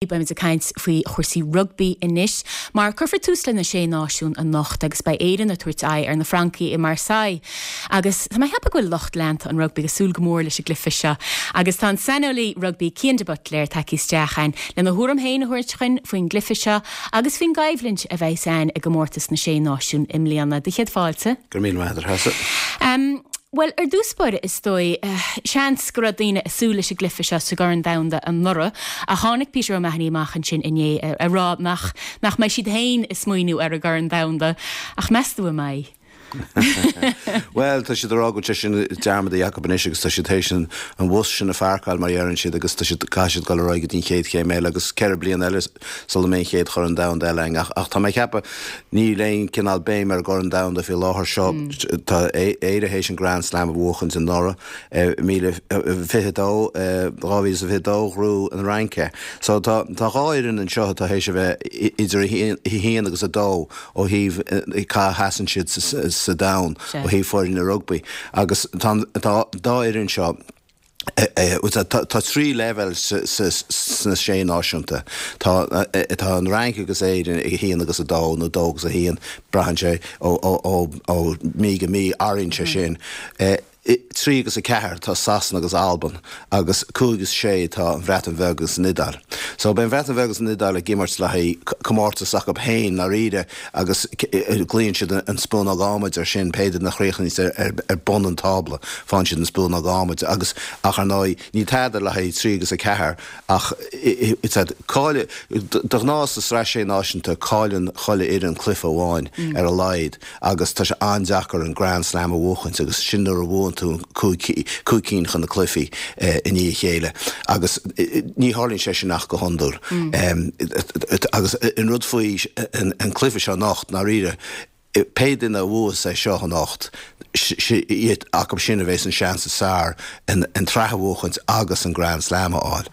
Beimid ag caint faoi chúrsaí rugbaí anois, mar cuirfear tús le na Sé Náisiún anocht agus beidh Éirinn ag tabhairt aghaidh ar na Francaigh i Marseille. Agus tá mé ag ceapadh go bhfuil lucht leanta an rugbaí ag súil go mór leis an gcluiche seo. Agus tá an saineolaí rugbaí Cian de Buitléir tagtha isteach againn lena thuairim féin a thabhairt chugainn faoin gcluiche seo agus faoin gcoimhlint a bheas ann i gcomórtas na Sé Náisiún i mbliana. Do chéad fáilte. Go raibh míle maith agat, a Threasa. Bhuel, ar dtús báire, is dóigh, seans go raibh daoine ag súil leis an gcluiche seo sa gCorn Domhanda anuraidh, ach tháinig Peter O'Mahony amach ansin inné ag rá nach nach mbeidh siad féin ag smaoineamh ar an gCorn Domhanda. Ach meas tú an mbeidh? Bhuel, tá siad ag rá go bhfuil sé sin dearmadta acu anois agus tá siad théis an bhus sin a pháirceáil, mar a deireann siad, agus tá siad, caithfidh siad dul ar aghaidh go dtí an chéad chéim eile agus 4 bliana eile sula mbeidh an chéad Chorn Domhanda eile againn. Ach tá mé ag ceapadh, níl aon cineál béim ar an gCorn Domhanda faoi láthair seo. Tá Éire théis an Grand Slam a bhuachaint anuraidh, 2022, 2022, ghnóthaigh an Fhrainc é. So tá tá dhá fhoireann anseo atá théis a bheith idir a haon agus a dó ó thaobh cá sheasann siad sa domhan ó thaobh foirne rugbaí. Agus tá an dá fhoireann seo, Tá 3 leibhéal sna Sé Náisiúnta. Tá an Fhrainc agus Éirinn ag 1 agus 2, nó 2 agus 1, braitheann sé ó mí go mí, athraíonn sé sin. 3 agus 4 tá Sasana agus Albain, agus 5 agus 6 tá an Bhreatain Bheag agus an Iodáil. So beidh an Bhreatain Bheag agus an Iodáil ag imirt le haghaidh comórtas acu féin, ndáiríre, agus glaonn siad an spúnóg adhmaid ar sin, pé duine a chríochnaíos ar bun an tábla, faigheann siad an spúnóg adhmaid agus, ach ar ndóigh, níl tada le haghaidh 3 agus 4 ach cáil, de ghnáth sa Sraith Sé Náisiúnta cailleann chuile fhoireann cluiche amháin ar a laghad agus tá sé an-deacair an Grand Slam a bhuachaint agus sin nuair a bhuann tú 5 cinn de na cluichí i ndiaidh a chéile agus ní tharlaíonn sé sin ach go hiondúil. Agus an rud faoi an cluiche seo anocht, ndáiríre, pé duine a bhuas é seo anocht, iad acu sin a bheas an seans is fearr an tsraith a bhuachaint agus an Grand Slam a fháil.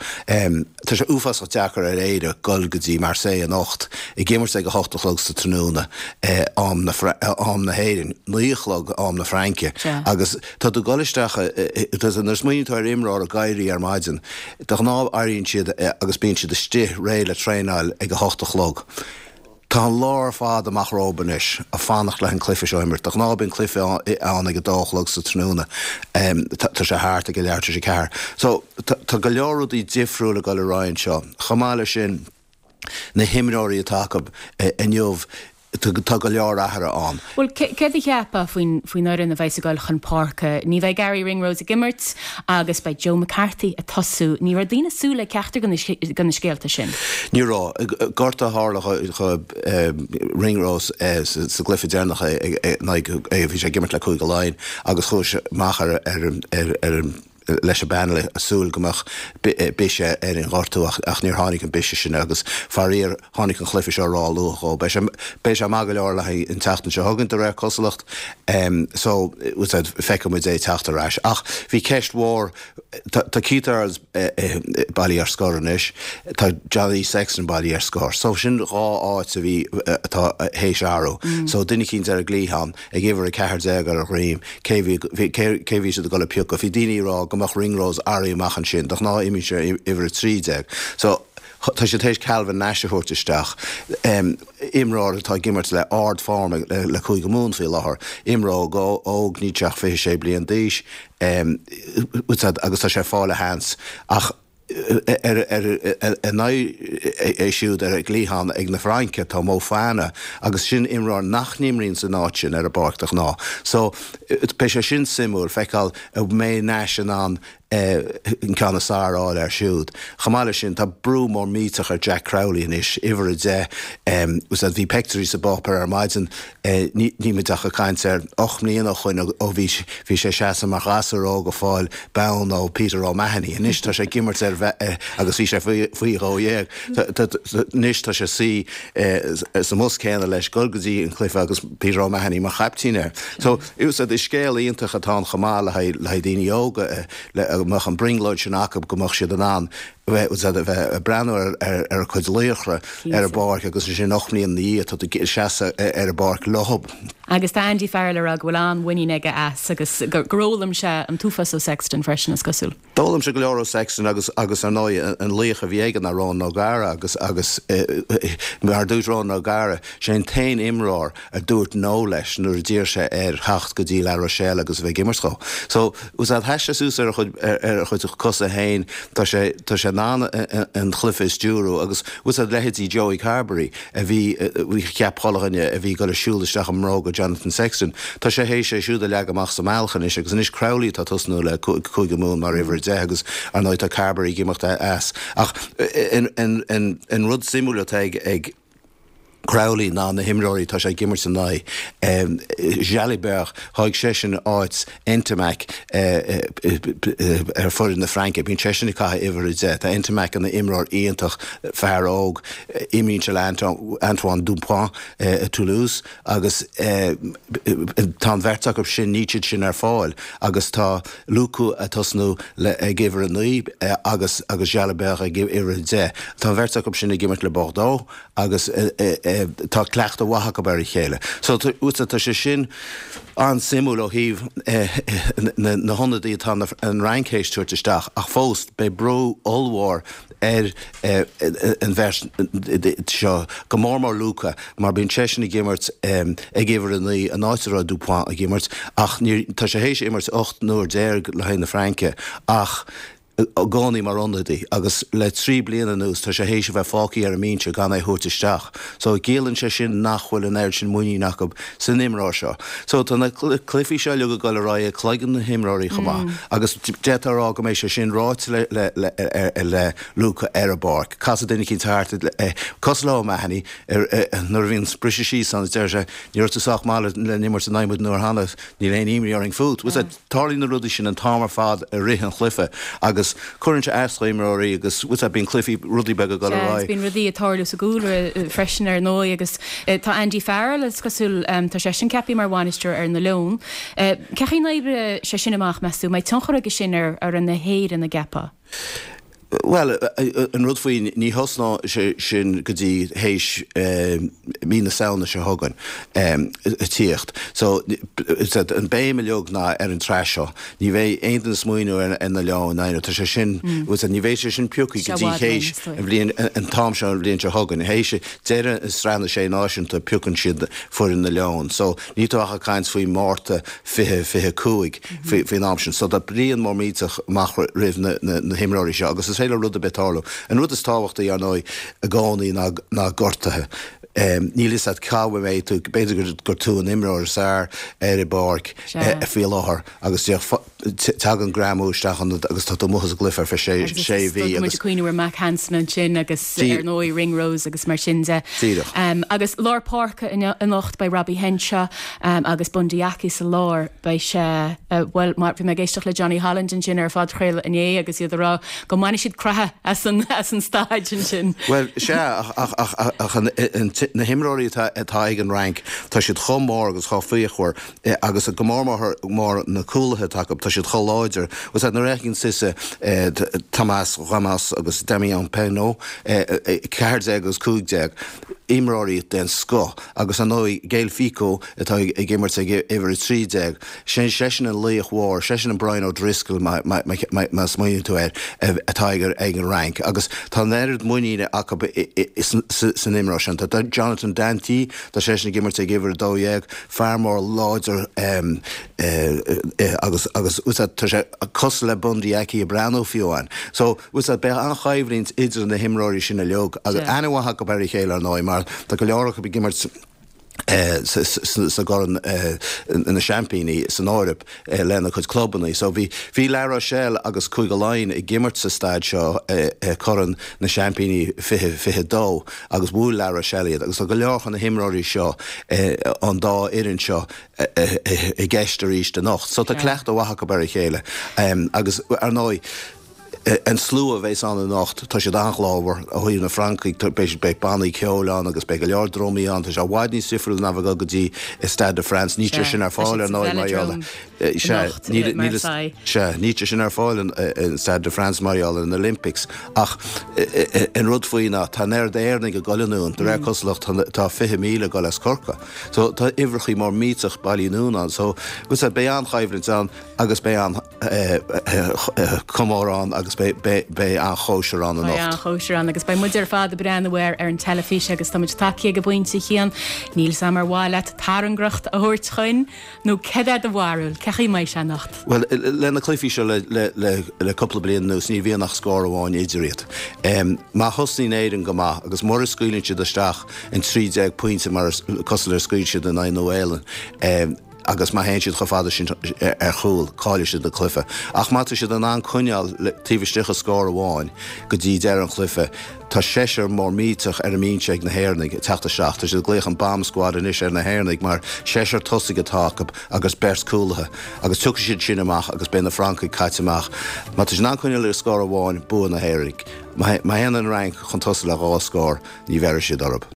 Tá sé uafásach deacair ar Éire dul go dtí Marseille anocht, ag imirt ag 8 a chlog sa tráthnóna, am na hÉireann, 9 a chlog am na Fraince, agus tá tú ag dul isteach, nuair a smaoiníonn tú ar imreoir ag éirí ar maidin, De ghnáth éiríonn siad agus bíonn siad istigh réidh le traenáil ag a hocht a chlog. Tá an lá ar fad amach rompu anois ag fanacht le an cluiche seo a imirt. De ghnáth bíonn cluiche ann ag a dó a chlog sa tráthnóna. Tá sé thart ag a leathuair tar éis a ceathair. So tá go leor rudaí difriúil ag dul ar aghaidh anseo. Chomh maith leis sin, na himreoirí atá acu inniu, tá go leor athruithe ann. Bhuel, céard a cheapfá faoin fhoireann a bheas ag dul chun páirce? Ní bheidh Garry Ringrose ag imirt agus beidh Joe McCarthy ag tosú. Ní raibh daoine ag súil le ceachtar de na scéalta sin. Ní raibh. Gortú a tharla do Ringrose sa gcluiche deireanach in aghaidh, bhí sé ag imirt le Cúige Laighean agus chuaigh sé amach ar an leis an bpainéal ag súil go mbeadh biseach ar an ghortú ach níor tháinig an biseach sin agus faraor tháinig an chluiche seo ró-luath dhó. Beidh sé beidh sé maith go leor le haghaidh an tseachtain seo chugainn de réir cosúlacht so feicfidh muid é ag teacht ar ais. Ach bhí ceist mhór, tá Keith Earls bailithe ar scor anois, tá Johnny Sexton bailithe ar scor so sin dhá áit a bhí atá théis athrú. So duine eicínt ar an gcliathán. ag uimhir 14 ar a dhroim, cé bhí, cé bhí siad ag dul a piocadh? Bhí daoine ag rá go mbeadh Ringrose éirithe amach ansin, de ghnáth imríonn sé uimhir 13. So, tá siad théis Calvin Nash a thabhairt isteach, imreoir atá ag imirt le ard-form le Cúige Mumhan faoi láthair, imreoir óg, níl sé ach 26 bliain d'aois, agus tá sé ag fáil a sheans. Ach. Ar a n-aghaidh siúd ar an gcliathán ag na Fraince tá Moefana agus sin imreoir nach n-imríonn san áit sin ar an bpáirc de ghnáth. So beidh sé sin suimiúil feiceáil an mbeidh Nash in ann an ceann is fearr a fháil air siúd. Chomh maith leis sin tá brú mór millteach ar Jack Crowley anois, uimhir 10. Bhí peictiúirí sa bpáipéar ar maidin Níl muid ach ag caint ar 8 mbliana ó shoin ó bhí bhí sé ag seasamh mar ghasúr óg ag fáil bonn ó Peter O'Mahony. Anois tá sé ag imirt ar agus bhí sé faoi dhó dhéag. Anois tá sé suí sa mbus céanna leis dul go dtí an cluiche agus Peter O'Mahony mar chaiptín air. So is scéal iontach atá ann chomh maith le haghaidh daoine óga le go mbeadh an brionglóid sin acu go mbeadh siad in ann. Bheith ag breathnú ar a cuid laochra ar an bpáirc agus ansin 8 mbliana ina dhiaidh tá tú ag seasamh ar an bpáirc leo. Agus tá Andy Farrell ag rá go bhfuil an-mhuinín aige as agus gur fhoghlaim sé an t-uafás ó Sexton freisin, is cosúil. D'fhoghlaim sé go leor ó Sexton agus agus ar ndóigh an laoch a bhí aige ná Ronan O'Gara agus agus mar a dúirt Ronan O'Gara, sé an t-aon imreoir a dúirt no leis nuair a d'iarr sé air theacht go dtí La Rochelle agus a bheith ag imirt dhó. So, was that sheas sé suas ar a chuid, ar a chuid cosa féin, tá sé, tá sé in ann an chluife a stiúrú agus was that leithéidí Joey Carbery a bhí, cheap chuile dhuine a bhí ag dul ag siúl isteach i mbróga Jonathan Sexton, tá sé théis é siúd a leagadh amach sa mbealach anois agus anois Crowley atá tosnú le Cúige Mumhan mar uimhir 10 agus ar ndóigh tá Carbery ag imeacht as. Ach an, an, an rud suimiúil atá ag, ag. Crowley ná na himreoirí atá sé ag imirt in aghaidh. Jalibert, thóg seisean áit Ntamack ar foireann na Fraince. Bíonn seisean ag caitheamh uimhir 10. Tá Ntamack ina imreoir iontach, fear óg. Imríonn sé le Antoine Dupont i Toulouse agus tá an bheirt acu sin, níl siad sin ar fáil agus tá Lucu ag tosnú ag uimhir 9 agus Jalibert ag uimhir 10. Tá an bheirt acu sin ag imirt le Bordeaux agus tá cleachtadh mhaith acu ar a chéile. So tá sé sin an-suimiúil ó thaobh na hionadaí atá an Fhrainc théis tabhairt isteach ach fós beidh brú ollmhór ar an bheirt seo, go mór mór Lucu mar bíonn seisean ag imirt ag uimhir 9 an áit a raibh Dupont ag imirt ach tá sé théis imirt 18 n-uair le haghaidh na Fraince ach i gcónaí mar ionadaí agus le 3 bliana anuas tá sé théis a bheith fágtha ar an mbinse gan é a thabhairt isteach. So ciallaíonn sé sin nach bhfuil an oiread sin muinín acu san imreoir seo. So tá na cluichí seo uilig ag dul ar aghaidh ag cloigeann na himreoirí chomh maith agus d'fhéadfá a rá go mbeidh sé sin ráite le le le le Luca ar an bpáirc. Casfaidh duine eicínt thart cosúil le O'Mahony nuair a bhíonn briseadh síos ann is deir sé ní raibh tú sách maith le n-imirt in aghaidh muid an uair cheana, níl aon imní orainn fút. Tarlaíonn na rudaí sin an t-am ar fad i rith an chluiche agus cuireann sé as do imreoirí agus bhfuil a fhios agat bíonn cluichí, rudaí beaga ag dul ar Sea, agus aghaidh. bíonn rudaí ag tarlú sa gcúlra freisin ar ndóigh agus tá Andy Farrell, is cosúil, tá seisean ceaptha mar bhainisteoir ar na Leoin. Cén chaoi a n-oibreoidh sé sin amach, meas tú? An mbeidh tionchar aige sin ar fhoireann na hÉireann, an gceapfá? Bhuel, an rud faoi, ní thosnóidh sé sin go dtí théis mí na Samhna seo chugainn ag tíocht. So, an béim uilig ná ar an tsraith seo. Ní bheidh aon duine ag smaoineamh ar na Leoin, tá sé sin, ní bheidh sé sin pioctha go dtí théis an bhliain, an t-am seo an bhliain seo chugainn. Théis deireadh Sraith na Sé Náisiún piocann siad foireann na Leon. So, níl tú ach ag caint faoi Márta 2025. faoin am sin. So tá bliain mór millteach amach roimh na himreoirí seo agus is féidir le rud ar bith tarlú. An rud is tábhachtaí, ar ndóigh, i gcónaí ná gortuithe. Níl fhios agat cá mbeidh tú, b'fhéidir gur tú an imreoir is fearr ar an bpáirc faoi láthair agus tagann greamú isteach ionat agus tá tú amuigh as an gcluiche ar feadh sé mhí. Agus tá muid ag cuimhneamh ar Mack Hansen ansin agus ar ndóigh Ringrose agus mar sin de. Díreach. Agus lár páirce anocht beidh Robbie Henshaw agus Bundee Aki sa lár. Beidh sé, bhuel, mar bhí mé ag éisteacht le Johnny Holland ansin ar an phodchraoladh inné agus iad ag rá go mbainfidh siad croitheadh as an, as an staid ansin. Bhuel, sea, ach, ach, ach, ach an, an, na himreoirí atá, atá ag an Fhrainc, tá siad chomh mór agus chomh fíochmhar agus go mór mór, mór na cúlaithe atá acu, tá siad chomh láidir. Bhuel, sea, nuair a fheiceann tusa Thomas Ramos agus Damian Penaud, 14 agus 15, imreoirí den scoth agus, ar ndóigh, Gaël Fickou, atá ag imirt ag uimhir 13. Sin seisean an laoch mhór, seisean an Brian O'Driscoll má smaoiníonn tú air, atá ag an Fhrainc. Agus tá an oiread muiníne acu san imreoir sin. Tá Jonathan Danty, tá seisean ag imirt ag uimhir 12, fear mór láidir agus agus tá sé cosúil le Bundee Aki ag breathnú fiú amháin. So beidh an-choimhlint idir na himreoirí sin uilig agus aithne mhaith acu ar a chéile ar ndóigh mar tá go leor acu ag imirt sa gCorn na Seaimpíní san Eoraip lena gcuid clubanna. So bhí bhí La Rochelle agus Cúige Laighean ag imirt sa staid seo i Corn na Seaimpíní 2022 agus bhuail La Rochelle iad agus tá go leor de na himreoirí seo an dá fhoireann seo i gceist arís anocht. So tá cleachtadh mhaith acu ar a chéile agus ar ndóigh. An slua a bheas ann anocht, tá siad an-ghlórmhar. Ó thaobh na Francaigh, beidh beidh bannaí ceoil ann agus beidh go leor drumaí ann. Tá sé i bhfad níos difriúil ná bheith ag dul go dtí Stade de France. Níl sé sin ar fáil ar ndóigh mar gheall Sea, níl níl sea, níl sé sin ar fáil in Stade de France mar gheall ar an Olympics. Ach an rud faoi ná tá an oiread Éireannaigh ag dul anonn, de réir cosúlacht tá 20,000 ag dul as Corcaigh. So tá uimhreachaí mór millteach bailithe anonn ann. So, beidh an-choimhlint ann agus beidh an comóradh ann agus beidh an-chóisir ann anocht. Beidh an-chóisir ann agus beidh muid ar fad ag breathnú air ar an teilifís agus tá muid tagtha ag an bpointe a Chian. Níl 's a'm ar mhaith leat tairngreacht a thabhairt chugainn nó céard é do bharúil, cén chaoi a mbeidh sé anocht? Bhuel, le na cluichí seo le cúpla bliain anuas ní bhíonn ach scór amháin idir iad. Má thosnaíonn Éirinn go maith agus mura scaoileann siad isteach an 13 pointe mar cosúil le scaoil siad in aghaidh Nua-Shéalainn, agus má théann siad chomh fada sin ar chúl, caillfidh siad an cluiche. Ach má tá siad in ann coinneáil taobh istigh de scór amháin go dtí deireadh an chluiche, tá seisear mór millteach ar an mbinse ag na hÉireannaigh ag teacht isteach. Tá siad ag glaoch an bomb squad anois ar na hÉireannaigh mar seisear tosaigh atá acu agus beirt cúlaithe. Agus tiocfaidh siad sin amach agus beidh na Francaigh caite amach. Má tá siad in ann coinneáil ar scór amháin, bua na hÉireannaigh. Má théann an Fhrainc chun tosaigh le dhá scór, ní bheirfidh siad orthu.